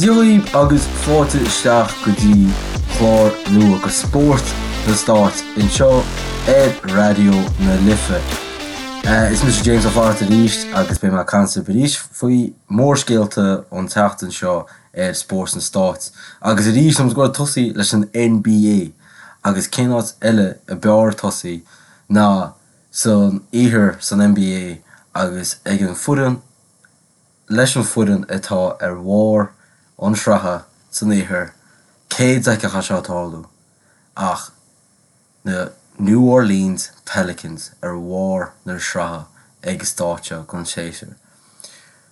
Dia dhaoibh agus fáilte isteach go dtí clár nua de Spórt na Stáit anseo ar Raidió na Life. Is mise James Ó Flatharta arís agus beidh mé ag caint libh arís faoi mhórscéalta an tseachtain seo ar Spórt na Stáit. Agus arís táimid ag goil ag tosaí leis an NBA agus cén áit eile a b'fhearr tosaí ná san iarthar san NBA agus ag an foireann leis an foireann atá ar bharr an sraithe san iarthar, cé d'fheicfeadh é seo ag tarlú ach na New Orleans Pelicans ar bharr na sraithe ag an stáitse seo den séasúr.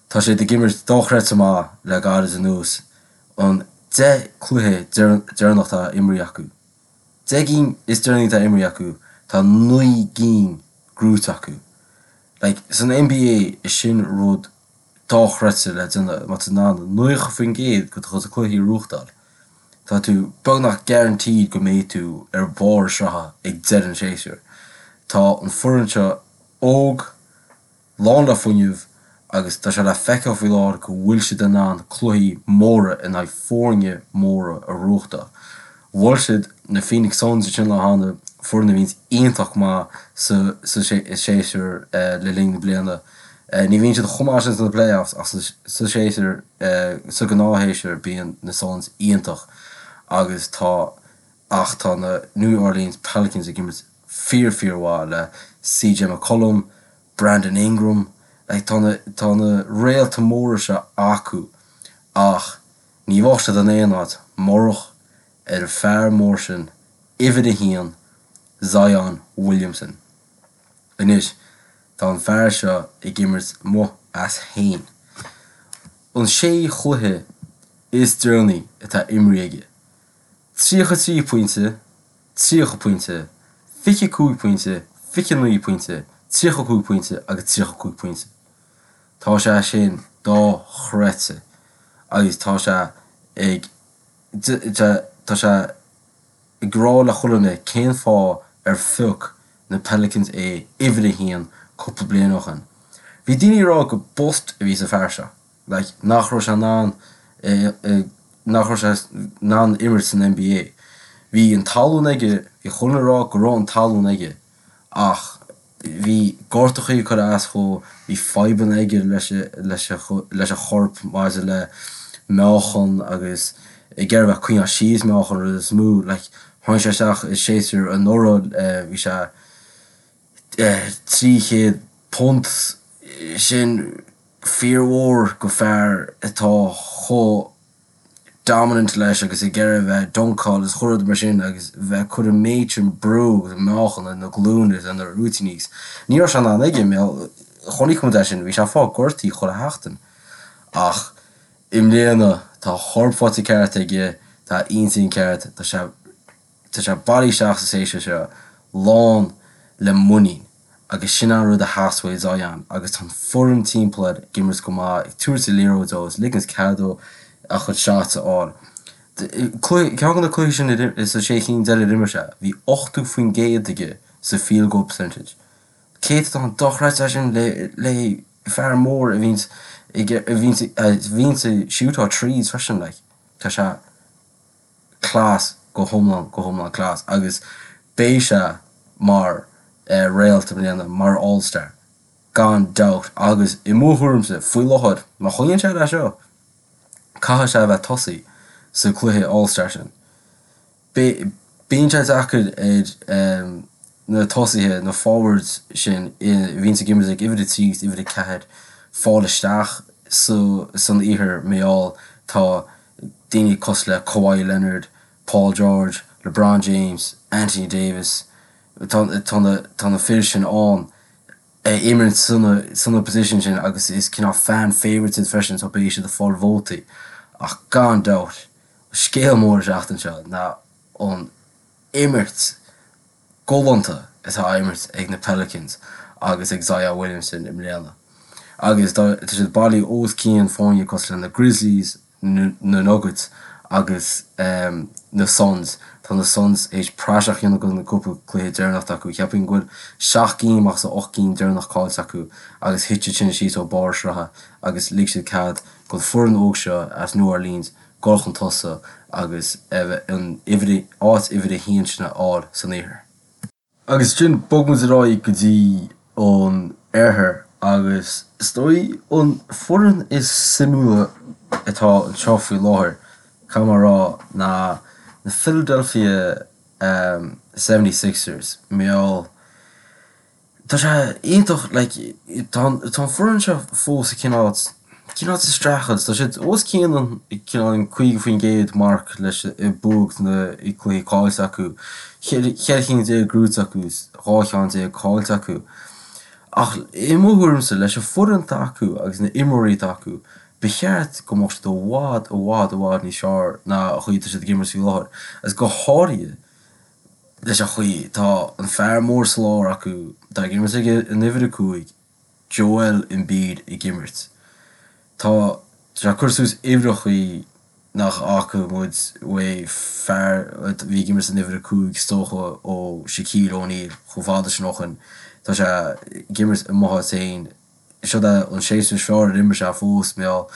Tá siad ag imirt dochreidte maith le gairid anuas, an 10 cluiche deireanach atá imrithe acu. 10 gcinn is deireanaí atá imrithe acu, tá 9 gcinn gnóite acu. Like, san NBA, is sin rud dochreidte le déanamh, má tá tú in ann 90% de do chuid cluichí a ghnóthachtáil, tá tú beagnach guaranteed go mbeidh tú ar bharr sraithe ag deireadh an tséasúir. Tá an foireann seo óg, lán le fuinneamh agus tá sé le feiceáil faoi láthair go bhfuil siad in ann cluichí móra in aghaidh foirne móra a ghnóthachtáil. Bhuail siad na Phoenix Suns ansin an lá cheana, foireann a bhíonns iontach maith sa séasúr le linn na bliana. Ní bhíonn siad chomh maith sin sna playoffs ach sa séasúr, sa ghnáthshéasúr bíonn na Suns iontach agus tá ach tá na New Orleans Pelicans ag imirt fíor fíor mhaith le CJ McCollum, Brandon Ingram, like tá na tá na réalta móra seo acu ach ní bheadh siad in aon áit murach ar an fear mór sin, uimhir a haon, Zion Williamson. Anois tá an fear seo ag imirt amuigh as féin. An sé chluiche is deireanaí atá imrithe aige, 33 pointe, 30 pointe, 25 pointe, 29 pointe, 35 pointe agus 35 pointe. Tá sé sin dochreidte agus tá sé ag tá sé ag rá le chuile dhuine cén fáth ar phioc na Pelicans é uimhir a haon cúpla bliain ó shin. Bhí daoine ag rá gur bust a bhí sa fear seo. like nach raibh sé in ann nach raibh sé in ann imirt san NBA. Bhí an tallann aige, bhí chuile dhuine ag rá go raibh an tallann aige ach bhí gortachaí ag cur as dhó, bhí fadhbanna aige leis leis leis a chorp maidir le meáchan agus ag iarraidh bheith ag coinneáil síos meáchan rud is mó like tháinig sé isteach i séasúr anuraidh bhí sé 300 punt sin fíormhór go fear atá chomh dominant leis agus ag iarraidh a bheith ag dunkáil is chuile rud mar sin agus bheith ag cur an méid sin brú agus meáchan ar na glúine is ar na rúitíní agus ní raibh sé in ann aige mar chonaic muid é sin bhí sé ag fáil gortaithe chuile sheachtain ach i mbliana tá a chorp faighte ceart aige tá a intinn ceart tá sé Tá sé bailithe isteach sa séasúr seo lán le muinín agus sin an rud a theastaigh uaidh Zion agus tá an foireann timpeall air ag imirt go maith, ag tabhairt an liathróid dó is ligint cead dó a chuid shots a fháil. Ceann de na cluichí sin sa sé cinn deiridh ar imir sé, bhí 80% aige sa field goal percentage. Céatadán dochreidte é sin le fear mór a bhíonns a bhíonns ag siútáil threes freisin like. Tá sé. class go hiomlán go hiomlán class agus beidh sé mar réalt i mbliana mar all star gan dabht agus i mo thuairimse faoi láthair má choinníonn sé leis seo caithfidh sé a bheith tosaí sa cluiche all star sin. Bíonn sé deacair ar na tosaithe, na forwards sin a bhíonns ag imirt ag uimhir 3 agus uimhir 4 fáil isteach san iarthar mar gheall tá daoine cosúil le Kawhi Leonard, Paul George, LeBron James, Anthony Davis, tá na tá na fir sin ann ag imirt sna sna position sin agus is cineál fan favourites iad freisin so beidh siad ag fáil vótaí ach gan dabht scéal mór an tseachtain seo ná an imirt galánta atá á imirt ag na Pelicans agus ag Zion Williamson i mbliana. Agus tá siad bailithe os cionn foirne cosúil le na Grizzlies, na Nuggets. Agus na Suns, tá na Suns théis praiseach a dhéanamh de na cúpla cluiche deireanach atá acu. Cheapfainn go bhfuil 7 gcinn amach as 8 gcinn deireanach caillte acu agus thit siad sin síos ó barr sraithe agus lig siad cead don foireann óg seo as New Orleans dul chun tosaigh agus an uimhir, áit uimhir a haon sin a fháil san iarthar. Agus ansin bog muid ar aghaidh go dtí an oirthear agus is dóigh an foireann is suimiúla atá anseo faoi láthair, caithfidh mé a rá, ná na Philadelphia 76ers. Mar gheall Tá sé iontach, like, tá an tá an foireann seo fós ag cineál cineál sa streachailt. Tá siad os cionn an cineál an 50% marc leis buaidh na cluichí caillte acu. 14 cheann gnóite acu is 12 cheann caillte acu. Ach i mo thuairimse, leis an foireann atá acu agus na imreoirí atá acu, ba cheart go mbeadh siad i bhfad, i bhfad, i bhfad níos fearr ná an chaoi atá siad ag imirt faoi láthair. Agus go háirithe leis an chaoi tá an fear mór sa lár acu, atá ag imirt ag an uimhir 5, Joel Embiid ag imirt. Tá sé ag cur suas uimhreachaí nach bhfaca muid uaidh fear a bhí ag imirt san uimhir 5 is dócha ó Shaquille O'Neal chomh fada sin ó shin. Tá sé ag imirt amuigh as féin. Seo é an séasúr is fearr ar imir sé fós, mar gheall.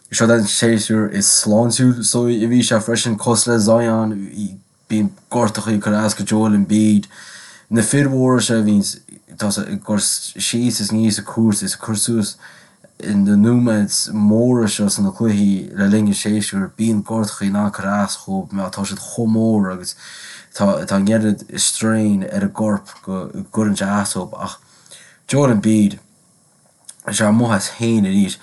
Seo é an séasúr is sláintiúil is dóigh a bhí sé freisin, cosúil le Zion. Bíonn gortachaí ag cur as go Joel Embiid. Na fir mhóra seo a bhíonns tá ag cur síos is aníos an cúirt is ag cur suas na nóiméid móra seo sna cluichí le linn an séasúir, bíonn gortachaí in ann cur as dhóibh mar tá siad chomh mór agus tá tá an oiread strain ar a gcorp go gcuireann sé as dóibh. Ach Joel Embiid. sé amuigh as féin arís.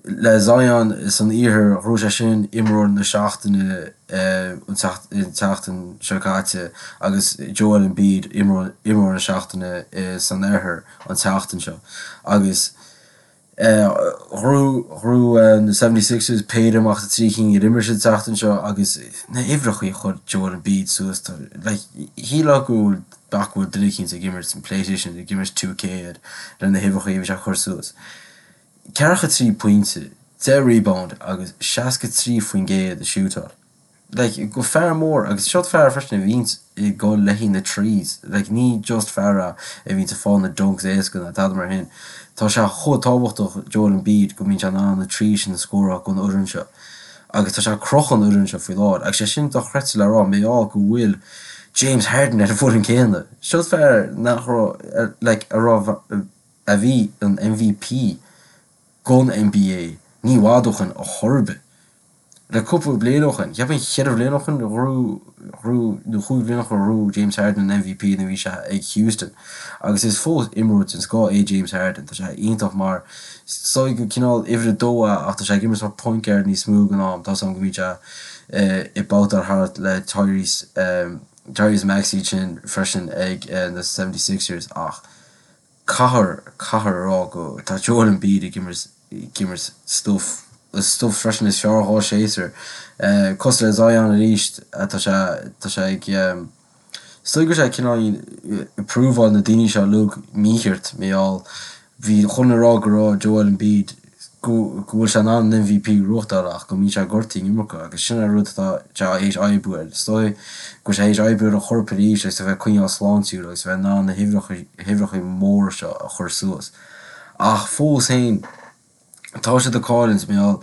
Le Zion san iarthar, ghnóthaigh sé sin imreoir na seachtaine an tseachtain seo caite agus Joel Embiid imreoir na seachtaine san oirthear an tseachtain seo. Agus ghnóthaigh na 76ers péire amach as na trí chinn ar imir siad an tseachtain seo agus na huimhreachaí a chuir Joel Embiid suas, like, shílfeá go bhfuil B'fhéidir go bhfuil duine eicínt ag imirt an PlayStation, ag imirt 2K air le na huimhreachaí a bhí sé ag cur suas. 43 pointe, 10 rebound agus 63% ag siútáil. Like, go fear mór agus seo fear freisin a bhíonns ag dul le haghaidh na threes. Like, ní just fear é a bhíonns ag fáil na dunks éasca ná tada mar shin. Tá sé chomh tábhachtach Joel Embiid go mbíonn sé in ann na threes sin a scóráil don fhoireann seo. Agus tá sé ag crochadh an fhoireann seo faoi láthair. Agus sé sin dochreidte le rá, mar gheall go bhfuil James Harden ar an bhfoireann céanna. Seo fear nach raibh, like, a raibh, a bhí an MVP gon NBA ní i bhfad ó shin ar chor ar bith. Le cúpla bliain ó shin, cheapfainn cheithre bhliain ó shin, ghnóthaigh, nó chúig bhliain ó shin ghnóthaigh James Harden an MVP nuair a bhí sé ag Houston. Agus is fós imreoir den scoth é James Harden. Tá sé iontach mar Is dóigh gur cineál uimhir a dó é ach tá sé ag imirt mar point guard níos mó den am. Tá 's agam go mbíonn sé ag babhtáil thart le Tyrese Tyrese Maxey ansin freisin ag na 76ers ach caithfear caithfear a rá go tá Joel Embiid ag imirt ag imirt stuif stuif freisin is fearr dhá séasúr. Cosúil le Zion arís tá sé tá sé ag Is dóigh go bhfuil sé cineál ag prúváil na daoine seo uilig mícheart, mar gheall, bhí chuile dhuine ag rá go raibh Joel Embiid, go bhfuil sé in ann an MVP a ghnóthachtáil ach go mbíonn sé gortaithe an iomarca agus sin an rud atá sé théis oibriú air. Is dóigh go bhfuil sé théis oibriú ar a chorp arís agus a bheith coinneáil sláintiúil agus a bheith in ann na huimhreacha móra seo a chur suas. Ach fós féin, Tá siad ag cailliúint, mar gheall,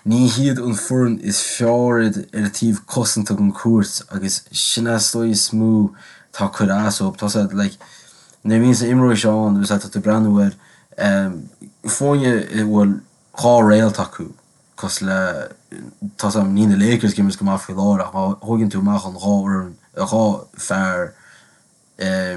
ní hiad an foireann is fearr ar an taobh cosanta den chúirt agus sin é is dóigh is mó atá ag cur as dóibh. Tá siad, like, nuair a bhíonns na imreoirí seo ann agus tá tú ag breathnú ar foirne a bhfuil dhá réalt acu, cosúil le, tá 's agam, níl na Lakers ag imirt go maith faoi láthair ach má thóigeann tú amach an dhá fhoireann, dhá fear,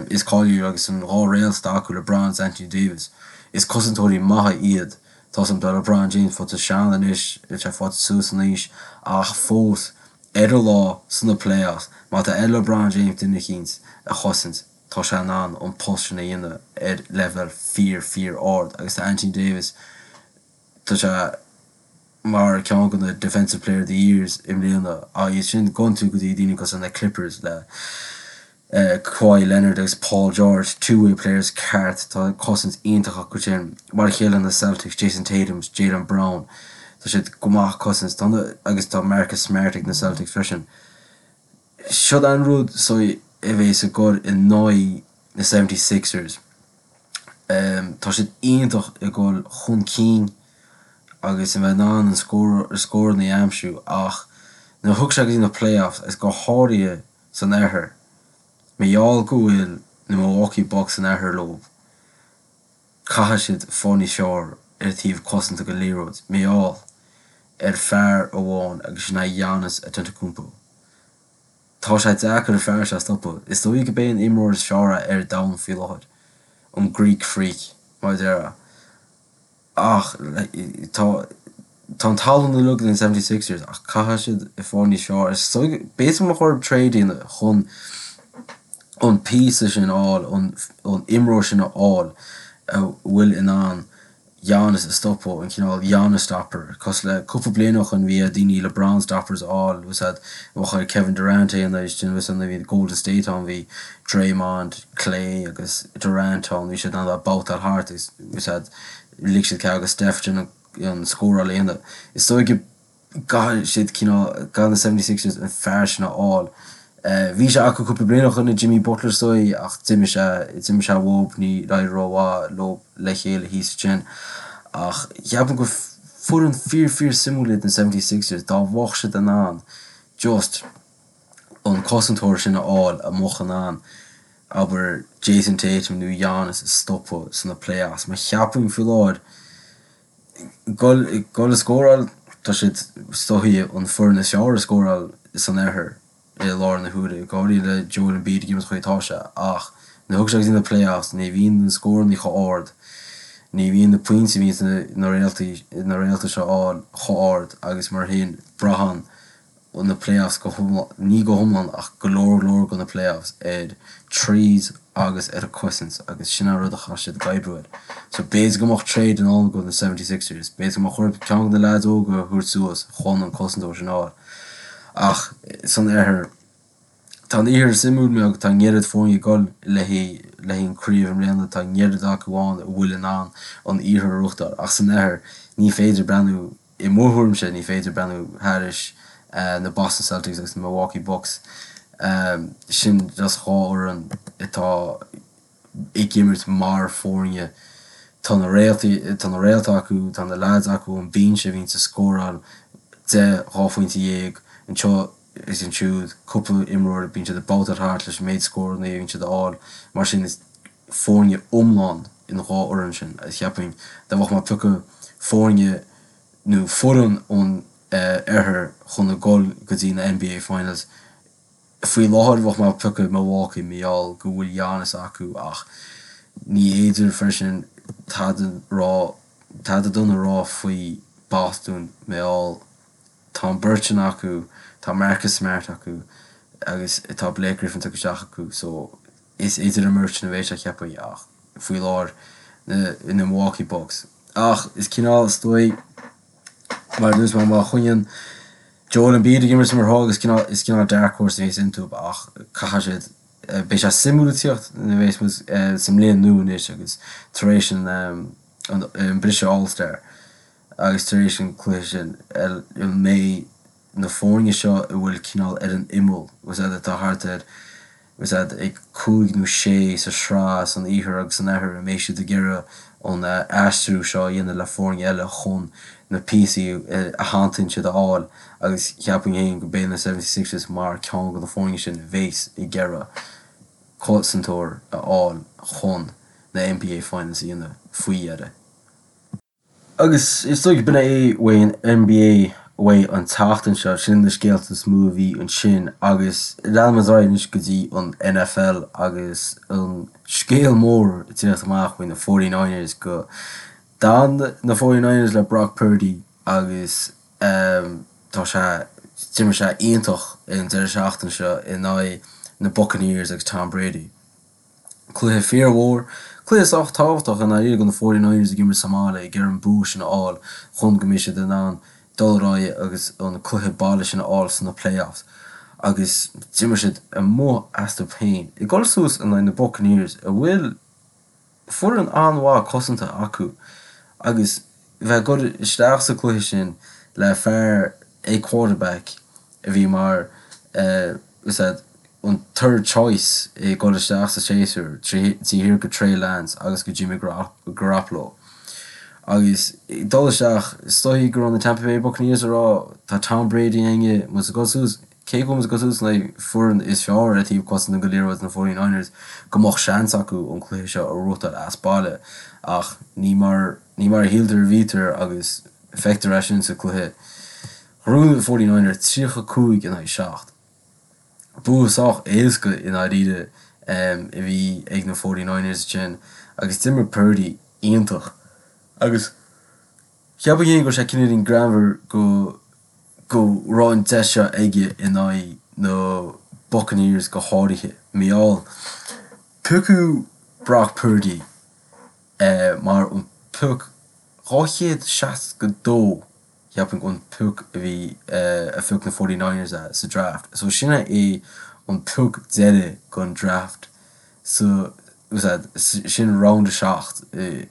is cáiliúil agus an dhá réalt atá acu, LeBron is Anthony Davis. Is cosantóirí maithe iad. Tá 's agam tá LeBron James faighte sean anois, tá sé faighte suas in aois, ach fós, ar a lá, sna playoffs, má tá ar LeBron James duine eicínt a chosaint, tá sé in ann an post sin a dhéanamh ar leibhéal fíor, fíor ard. Agus tá Anthony Davis, tá sé mar ceann de na Defensive Player of the Years i mbliana. Agus ansin gabhann tú go dtí daoine cosúil na Clippers le Kawhi Leonard agus Paul George, two-way players ceart, tá cosaint iontach acu sin. Mar a chéile na Celtics, Jayson Tatum, Jaylen Brown. Tá siad go maith cosaint. Tá na, agus tá Marcus Smart ag na Celtics freisin. Siod an rud so a bhéas ag gol in aghaidh na 76ers. Tá siad iontach ag gol chun cinn agus a bheith in ann an scóranna a aimsiú ach nuair a thiocfaidh sé go dtí na playoffs agus go háirithe san oirthear, mar gheall go bhfuil na Milwaukee Bucks san oirthear leo, caithfidh siad fáil níos fearr ar an taobh cosanta den liathróid, mar gheall ar fear amháin agus sin é Giannis Antetokounmpo. Tá sé deacair an fear seo a stopadh. Is dóigh gurb é an imreoir is fearr é ar domhan faoi láthair, an Greek Freak, mar a déarfá. Ach tá tá an tallann uilig ag na 76ers ach caithfidh siad ag fáil níos fearr. Is dóigh b'fhéidir go mbeadh orthu trade a dhéanamh chun an píosa sin a fháil, an imreoir sin a fháil a bhfuil in ann Giannis a stopadh, an cineál Giannis stopper, cosúil le cúpla bliain ó shoin bhí ar daoine LeBron stoppers a fháil, bhfuil a fhios a'd, bheadh ar Kevin Durant é a dhéanamh, bhfuil a fhios a'd nuair a bhí Golden State ann bhí Draymond, Klay agus Durant ann, bhí siad in ann a babhtáil thart agus bhfuil a fhios a'd, lig siad cead do Steph déanamh an scóráil a dhéanamh. Is dóigh go gcaithfidh siad cineál, caithfidh na 76ers an fear sin a fháil. Bhí sé acu cúpla bliain ó shoin i Jimmy Butler is dóigh ach d'imigh sé, d'imigh sé uathub, ní éirigh rómhaith leo le chéile thíos ansin. Ach cheapfainn gur foireann fíor fíor suimiúil iad na 76ers dá mbeadh siad in ann just an cosantóir sin a fháil a mbeadh in ann, abair, Jayson Tatum nó Giannis a stopadh sna playoffs. Mar cheapfainn faoi láthair, gol ag scóráil, tá siad is dóigh an foireann is fearr ag scóráil san oirthear i láthair na huaire, go háirithe le Joel Embiid ag imirt an chaoi atá sé, ach nuair a thiocfaidh sé go dtí na playoffs ní bhíonn na scóranna chomh ard, ní bhíonn na pointí a bhíonn na réaltaí na réalta seo a fháil chomh ard agus mar sin braitheann na playoffs go hiomlán, ní go hiomlán ach go leor leor de na playoffs ar threes agus ar an cosaint agus sin an rud a chaithfidh siad ag oibriú air. So b'fhéidir go mbeadh trade i ndán do na 76ers, b'fhéidir go mbeadh orthu ceann de na leaids óga a thabhairt suas chun an cosantóir sin a fháil. Ach san oirthear, tá an iarthar suimiúil mar tá an oiread foirne ag dul le haghaidh le haghaidh an craobh i mbliana, tá an oiread acu ann a bhfuil in ann an iarthar a ghnóthachtáil ach san oirthear ní féidir breathnú I mo thuairimse, ní féidir breathnú thairis na Boston Celtics agus na Milwaukee Bucks. Sin just dhá fhoireann atá ag imirt mar foirne. Tá na réaltaí, tá na réalta acu, tá na leaids acu ón binse a bhíonns ag scóráil 10, 12 phointe anseo is ansiúd, cúpla imreoir, bíonn siad ag babhtáil thart leis an méid scóranna a bhíonn siad a fháil. Mar sin is foirne iomlán an dhá fhoireann sin agus cheapfainn dá mbeadh mé ag piocadh foirne nó foireann ón oirthear chun a dhul go dtí na NBA Finals faoi láthair bheadh mé ag piocadh Milwaukee mar gheall go bhfuil Giannis acu ach ní fhéidir freisin tada rá tada dona a rá faoi Boston mar gheall tá an bheirt sin acu tá Marcus Smart acu agus tá Blake Griffin tugtha isteach acu so Is idir an mbeirt sin a bheidh sé cheapfainn ach faoi láthair na na Milwaukee Bucks. Ach is cineál is dóigh mar a dúirt mé má choinníonn Joel Embiid ag imirt mar atá agus cineál is cineál dark horse a bhíonns iontu ach caithfidh siad beidh sé suimiúil ag tíocht nuair a bheas muid sa mbliain nua anois agus tar éis an an briseadh All Star agus tar éis an cluiche sin an mbeidh na foirne seo a bhfuil cineál ar an imeall, bhfuil a fhios a'd, atá thart ar, bhfuil a fhios a'd, ag cúig nó sé sa sraith san iarthar agus san oirthear, an mbeidh siad ag iarraidh an aistriú seo a dhéanamh le foirne eile chun na píosaí a theanntaíonn siad a fháil agus cheapfainn féin go mbeidh na 76ers mar ceann de na foirne sin a bheas ag iarraidh cosantóir a fháil chun na NBA Finals a dhéanamh faoi dheireadh. Agus is dóigh b'in é uaidh an NBA uaidh an tseachtain seo, sin na scéalta is mó a bhí ansin agus leanfaimid ar aghaidh anois go dtí an NFL agus an scéal mór ag tíocht amach faoi na Forty Niners go d'fhan na Forty Niners le Brock Purdy agus tá sé, d'imir sé iontach an deireadh seachtaine seo in aghaidh na Buccaneers agus Tom Brady. Cluiche fíormhór, cluiche sách tábhachtach i ndáiríre do na Forty Niners ag imirt sa mbaile ag iarraidh an bua sin a fháil chun go mbeidh siad in ann dul ar aghaidh agus an cluiche baile sin a fháil sna playoffs. Agus d'imir siad amuigh astu féin ag dul suas in aghaidh na Buccaneers a bhfuil foireann an-mhaith cosanta acu agus. bheith ag dul isteach sa cluiche sin le fear ag quarterback a bhí mar is ea an third choice ag dul isteach sa séasúr taobh thiar de Trey Lance agus de Jimmy Garoppolo. Agus ag dul isteach, is dóigh go raibh na Tampa Bay Buccaneers ag rá tá Tom Brady againne, muid ag dul suas, cé go bhfuil muid ag dul suas in aghaidh foireann is fearr ar taobh cosanta den liathróid, na 49ers, go mbeadh seans acu an cluiche seo a bhuachtáil as baile ach ní mar ní mar a shíltear a bhítear agus feictear é sin sa cluiche. Ghnóthaigh na 49ers 35 in aghaidh 7. Bua sách éasca i ndáiríre a bhí ag na 49ers ansin agus d'imir Purdy iontach agus cheapfainn féin go raibh sé cineáilín greannmhar go go raibh an deis seo aige in aghaidh na Buccaneers go háirithe. Mar gheall, piocadh Brock Purdy mar an pioc 262 cheapfainn an pioc a bhí a phioc na 49ers é sa draft. So sin é an pioc deiridh den draft so sin round 7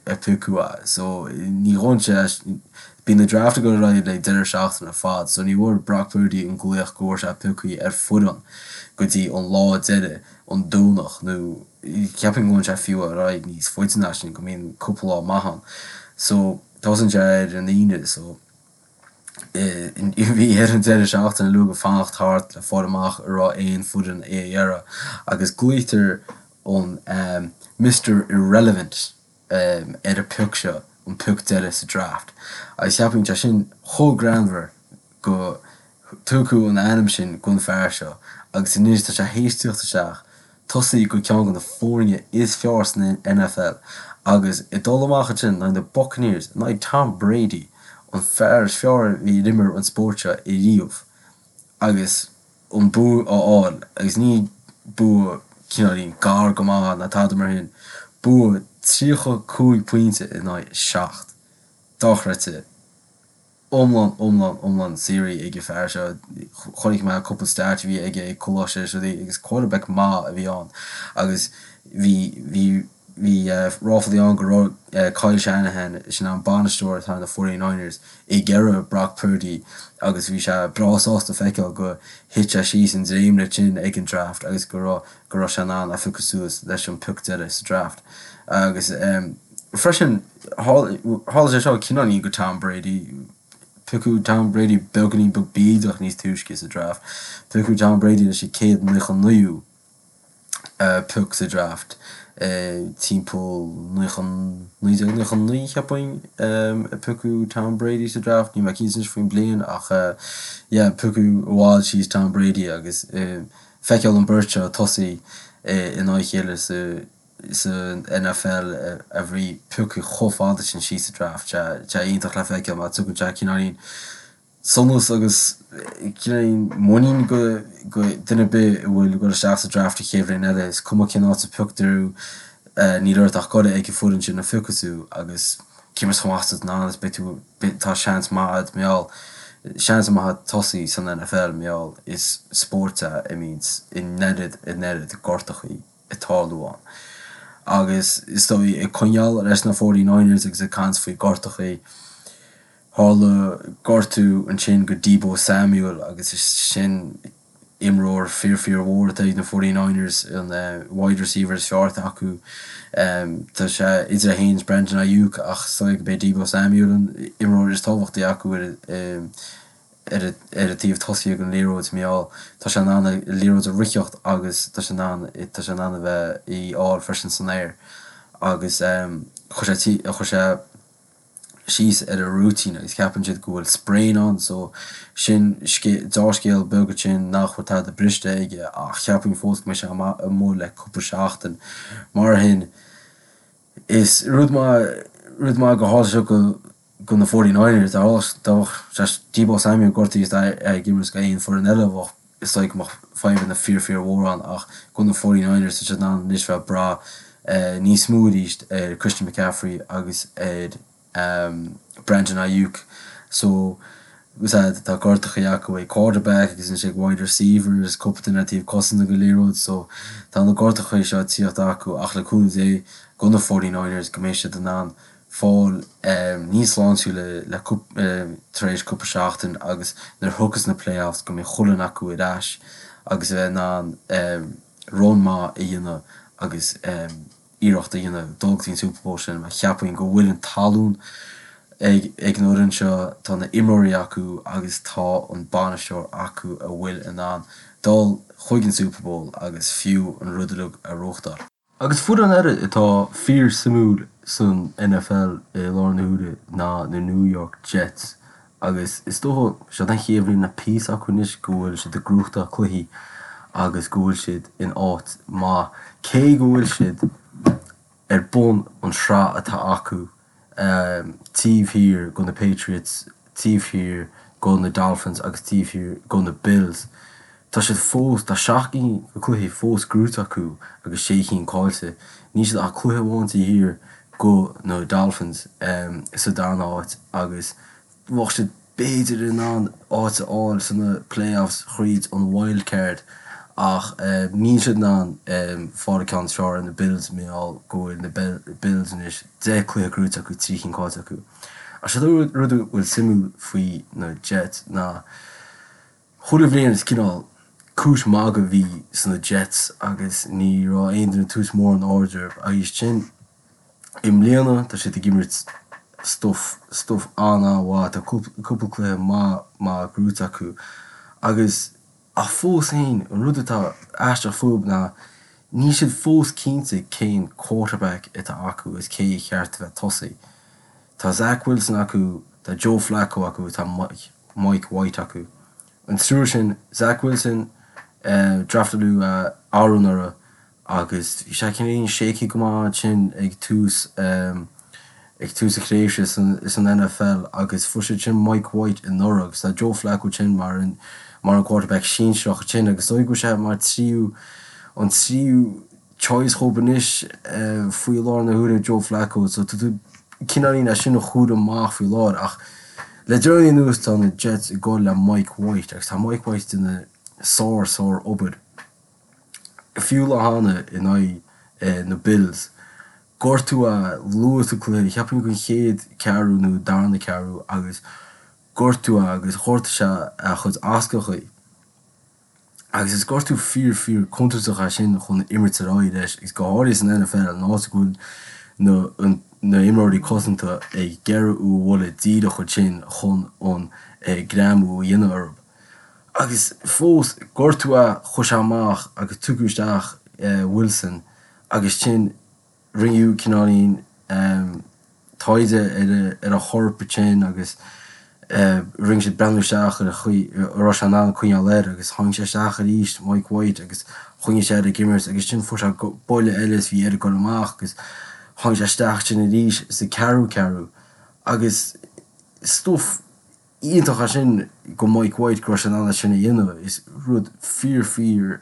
a piocadh é. So ní ghabhann sé bíonn na draft ag dul ar aghaidh le deireadh seachtaine ar fad so ní bhfuair Brock Purdy an glaoch go bhfuair sé pioctha ar foireann go dtí an lá deiridh an Domhnach nó cheapfainn go bhfuil sé fiú ar aghaidh níos faide ná sin go mbíonn cúpla lá maith ann. So tosaíonn sé ar an Aoine so bhí air an deireadh seachtaine uilig fanacht thart le fáil amach an raibh aon foireann é a iarraidh agus glaoitear an Mister Irrelevant ar an pioc seo, an pioc deiridh sa draft agus cheapfainn sé sin chomh greannmhar go tugadh an ainm sin don fear seo agus anois tá sé théis tíocht isteach tosaí do ceann de na foirne is fearr san NFL agus ag dul amach ansin in aghaidh na Buccaneers, in aghaidh Tom Brady, an fear is fearr a bhí ar imir an spórt seo ariamh agus an bua a fháil agus ní bua cineáilín gar go maith ná tada mar sin, bua 35 pointe in aghaidh 7. Dochreidte. iomlán, iomlán, iomlán saothraithe ag an fear seo. Chonaic mé cúpla stat a bhí aige ag coláiste is rudaí agus quarterback maith a bhí ann agus bhí, bhí, bhí ráflaí ann go raibh Kyle Shanahan, sin an bainisteoir atá ar na 49ers, ag iarraidh Brock Purdy agus bhí sé breá sásta feiceáil go thit sé síos an dréimire sin ag an draft agus go raibh, go raibh sé in ann é a phiocadh suas leis an pioc deiridh sa draft. Agus freisin, tharla sé seo cineáilín do Tom Brady, piocadh Tom Brady beagáinín beag bídeach níos túisce sa draft, piocadh Tom Brady leis an 199ú pioc sa draft timpeall 1999 cheapfainn a piocadh Tom Brady sa draft, níl mé cinnte anois faoin bliain ach yeah piocadh i bhfad síos Tom Brady agus feiceáil an beirt seo tosaí in aghaidh a chéile sa san NFL a bhí pioctha chomh fada sin síos sa draft. Tá sé iontach le feiceáil mar tugann sé cineáilín sonas agus cineáilín muinín do dhuine ar bith a bhfuil ag dul isteach sa draft an chéad bhliain eile. Is cuma cén áit a pioctar thú, níl ort ach dul ag an foireann sin a phiocfaidh tú agus cé mar is chomh maith is atá is beidh tú tá seans maith agat mar gheall seans maith agat tosaí san NFL mar gheall is spórt é a mbíonns an oiread an oiread gortachaí ag tarlú ann. Agus is dóigh ag coinneáil leis na 49ers agus ag caint faoi gortachaí, tharla gortú ansin do Deebo Samuel agus is sin imreoir fíor fíor mhór atá ag na 49ers, an wide receiver is fearr atá acu. Tá sé idir é féin is Brandon Aiyuk ach is dóigh gurb é Deebo Samuel an imreoir is tábhachtaí acu ar ar an taobh tosaigh den liathróid mar gheall tá sé in ann an liathróid a ritheacht agus tá sé in ann tá sé in ann a bheith í fháil freisin san aer agus chuir sé chuir sé síos ar a rúitín agus ceapann siad go bhfuil sprain ann so sin dea-scéal beag ansin nach bhfuil tada briste aige ach cheapfainn fós go mbeidh sé amuigh le cúpla seachtain mar shin is rud maith rud maith go tharla sé go do na 49ers, dá mbeadh Deebo Samuel gortaithe is é ag imirt do aon foireann eile bheadh is dóigh go mbeadh fadhbanna fíor fíor mhór ann ach do na 49ers tá siad in ann anois bheith ag brath níos mó arís ar Christian McCaffrey agus ar Brandon Aiyuk so tá gortachaí acu ag quarterback agus anois ag wide receivers, cúpla duine ar taobh cosanta den liathróid so tá na gortachaí seo ag tíocht acu ach le cúnamh Dé do na 49ers go mbeidh siad in ann. fáil níos sláintiúla le tar éis cúpla seachtain agus nuair a thiocfas na playoffs go mbeidh chuile dhuine acu ar ais agus a bheith in ann run maith a dhéanamh agus iarracht a dhéanamh dul go dtí an Super Bowl sin mar cheapfainn go bhfuil an talún ag ag an fhoireann seo, tá na imreoirí acu agus tá an bainisteoir acu a bhfuil in ann dul chuig an Super Bowl agus fiú an rud uilig a ghnóthachtáil. Agus foireann eile atá fíor suimiúil san NFL i láthair na huaire ná na New York Jets agus is dócha, seo an chéad bhliain le píosa acu anois go bhfuil siad ag gnóthachtáil cluichí agus go bhfuil siad in áit maith cé go bhfuil siad ar bun an sraith atá acu taobh thiar go na Patriots, taobh thiar go na Dolphins agus taobh thiar go na Bills. Tá siad fós, tá 7 gcinn de cluichí fós gnóite acu agus 6 chinn caillte. Níl siad ach cluiche amháin taobh thiar go na Dolphins sa darna háit agus bheadh siad b'fhéidir in ann áit a fháil sna playoffs thríd an wild card ach níl siad in ann fáil an ceann is fearr ar na Bills mar gheall go bhfuil na Bills anois 10 cluiche gnóite acu, 3 chinn caillte acu. Ach sé an rud a bhfuil suimiúil faoi na Jets ná chuile bhliain is cineál cúis magaidh a bhí sna Jets agus ní raibh aon duine ag tabhairt mórán aird orthu agus sin I mbliana tá siad ag imirt stuif, stuif an-an-mhaith, tá cúpla cluiche maith maith gnóite acu agus, ach fós féin, an rud atá aisteach fúthu ná níl siad fós cinnte cén quarterback atá acu agus cé a cheart a bheith tosaí. Tá Zach Wilson acu, tá Joe Flacco acu, tá Mike, Mike White acu. An triúr sin, Zach Wilson, draftáladh é anuraidh agus bhí sé cineáilín shaky go maith ansin ag tús ag tús a thréimhse san NFL agus fuair siad sin Mike White anuraidh agus tá Joe Flacco ansin mar an mar an quarterback sinsearach ansin agus is dóigh go bhfuil sé mar tríú an tríú choice dhóibh anois faoi láthair na huaire Joe Flacco so tá tú cineáilín é sin a chur amach faoi láthair ach le deireanaí anuas tá na Jets ag dul le Mike White agus tá Mike White ag déanamh sár sár obair. Fiú lá cheana in aghaidh na Bills, gortú é luath sa cluiche, cheapfainn an chéad ceathrú nó darna ceathrú agus gortú é agus ghortaigh sé a chuid ascachaí. Agus is gortú fíor fíor contúirteach é sin chun imirt ar aghaidh leis agus go háirithe san NFL an áit go bhfuil na na imreoirí cosanta ag iarraidh thú a bhualadh díreach ansin chun an greamú a dhéanamh orthu. Agus fós, gortú é, chuaigh sé amach agus tugadh isteach Wilson agus ansin rinneadh cineáilín taighde ar a chorp ansin agus rinne siad breathnú isteach ar an chaoi a raibh sé in ann coinneáil air agus tháinig sé isteach arís, Mike White, agus choinnigh sé air ag imirt agus ansin fuair sé buille eile is bhí air dul amach agus tháinig sé isteach ansin arís sa ceathrú ceathrú agus stuif iontach é sin go Mike White go raibh sé in ann é sin a dhéanamh. Is rud fíor fíor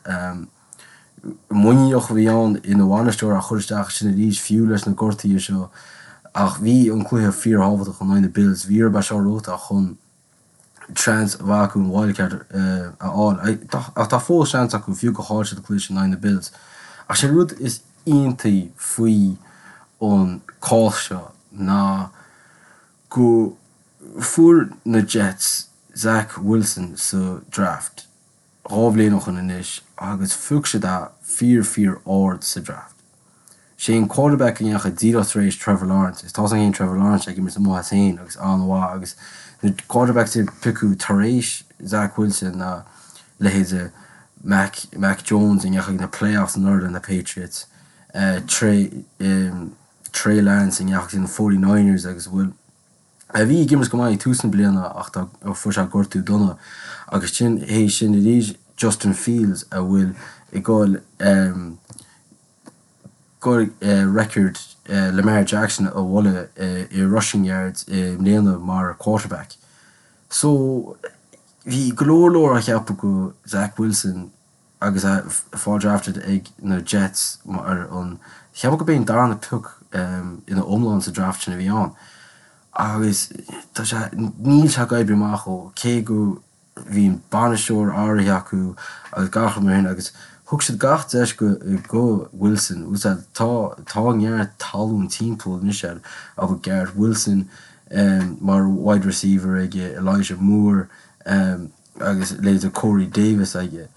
muiníneach a bhí ann ina bhainisteoir a chur isteach ansin arís fiú leis na gortuithe seo ach bhí an cluiche fíor thábhachtach in aghaidh na Bills. Bhí orthu é seo a ghnóthachtáil chun seans a bheith acu an wildcard a fháil. Ach tá fós seans acu fiú gur chaill siad an cluiche sin in aghaidh na Bills. Ach sé an rud is iontaí faoi an cás seo ná go fuair na Jets Zach Wilson sa draft 2 bhliain ó shoin anois agus phioc siad é fíor fíor ard sa draft. Sé an quarterback a ndeachaigh díreach tar éis Trevor Lawrence agus tá's againn féin Trevor Lawrence ag imirt amuigh as féin agus an-mhaith agus na quarterbacks a piocadh tar éis Zach Wilson ná leithéide Mac Mac Jones a ndeachaigh na playoffs anuraidh le na Patriots, Trey Trey Lance a ndeachaigh na 49ers agus a bhfuil a bhí ag imirt go maith ag tús na bliana ach tá fuair sé gortú dona agus sin théis sin arís Justin Fields a bhfuil ag goil goil record Lamar Jackson a bhualadh i rushing yards i mbliana mar quarterback. So bhí go leor leor á cheapadh go Zach Wilson agus é fáil drafted ag na Jets mar an, cheapfainn go b'é an darna pioc ina iomlán sa draft sin a bhí ann. Agus tá sé, níl sé ag oibriú amach dhó, cé go bhí an bainisteoir áirithe acu agus gach rud mar sin agus. Thug siad gach deis go go Wilson. Bhfuil a fhios a'd, tá tá neart talún timpeall anois air ach Garrett Wilson mar wide receiver aige, Elijah Moore agus leithéide Corey Davis aige.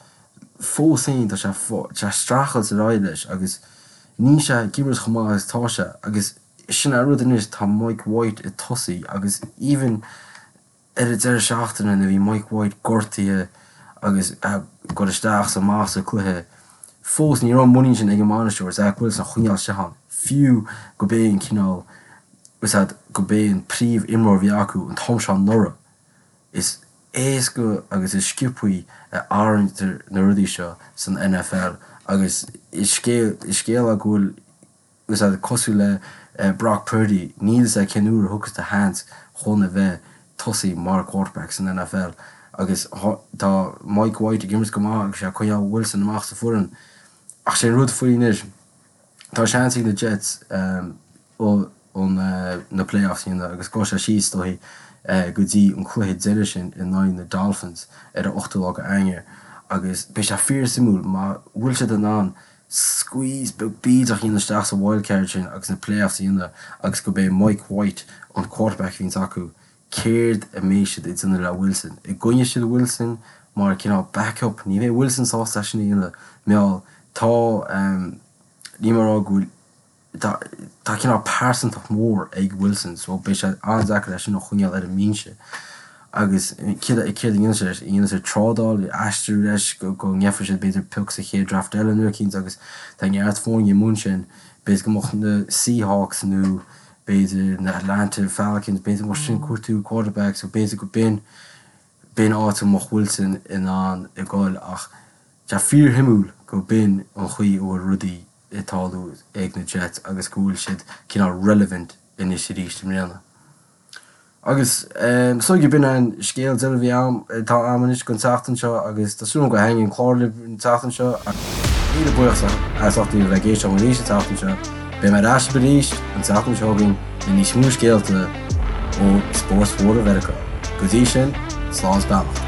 Fós féin tá sé tá sé streachailt ar aghaidh leis agus níl sé ag imirt chomh maith agus atá sé agus sin an rud anois tá Mike White ag tosaí agus even Ar an deireadh seachtaine nuair a bhí Mike White gortaithe agus ag dul isteach is amach sa cluiche, fós ní raibh an muinín sin ag an mbainisteoir Zach Wilson a choinneáil isteach ann, fiú go b'é an cineál, is ea, go b'é an príomh imreoir a bhí acu an t-am seo anuraidh. Is éasca agus is sciobthaí a athraítear na rudaí seo san NFL agus is scéal is scéal é go bhfuil is ea, cosúil le Brock Purdy, níl fhios a'd cén uair a thiocfas do sheans chun a bheith tosaí mar quarterback san NFL agus tá Mike White ag imirt go maith agus sé ag coinneáil Wilson amach sa foireann. Ach sé an rud faoi anois, tá seans ag na Jets an na playoffs a dhéanamh agus gabhfaidh sé síos is dóichí go dtí an cluiche deiridh sin in aghaidh na Dolphins ar an 8ú lá go Eanáir agus beidh sé fíor suimiúil má bhfuil siad in ann squeeze beag bídeach a dhéanamh isteach sa wild card sin agus na playoffs a dhéanamh agus go b'é Mike White an quarterback a bhíonns acu, céard a mbeidh siad ag déanamh le Wilson? An gcoinneoidh siad Wilson mar cineál backup? Ní bheidh Wilson sásta é sin a dhéanamh. Mar tá, níl mé ag rá go bhfuil Tá tá cineál pearsantacht mhór ag Wilson so beidh sé an-deacair é sin a choinneáil ar an mbinse. Agus céard a céard a dhéanfaidh sé leis? An ndéanfaidh sé trádáil, aistriú leis go go ngeobhaidh siad b'fhéidir pioc sa chéad draft eile nó eicínt agus tá neart foirne i mbun sin. B'fhéidir go mbeadh na Seahawks nó b'fhéidir na Atlanta Falcons, b'fhéidir go mbeadh sin ag cuartú quarterback so b'fhéidir go b'in b'in áit a mbeadh Wilson in ann a ghoil ach tá fíorshuimiúil go b'in an chaoi a bhfuil rudaí ag tarlú ag na Jets agus go bhfuil siad cineál relevant anois arís i mbliana. Agus so b'in an scéal deiridh a bhí a'm, atá a'm anois don tseachtain seo agus tá súil agam gur thaitnigh an clár libh an tseachtain seo agus míle buíochas as ucht a bheith ag éisteacht liom arís an tseachtain seo. Beidh mé ar ais libh arís an tseachtain seo chugainn le níos mó scéalta ó spóirt mhóra Mheiriceá. Go dtí sin, slán is beannacht.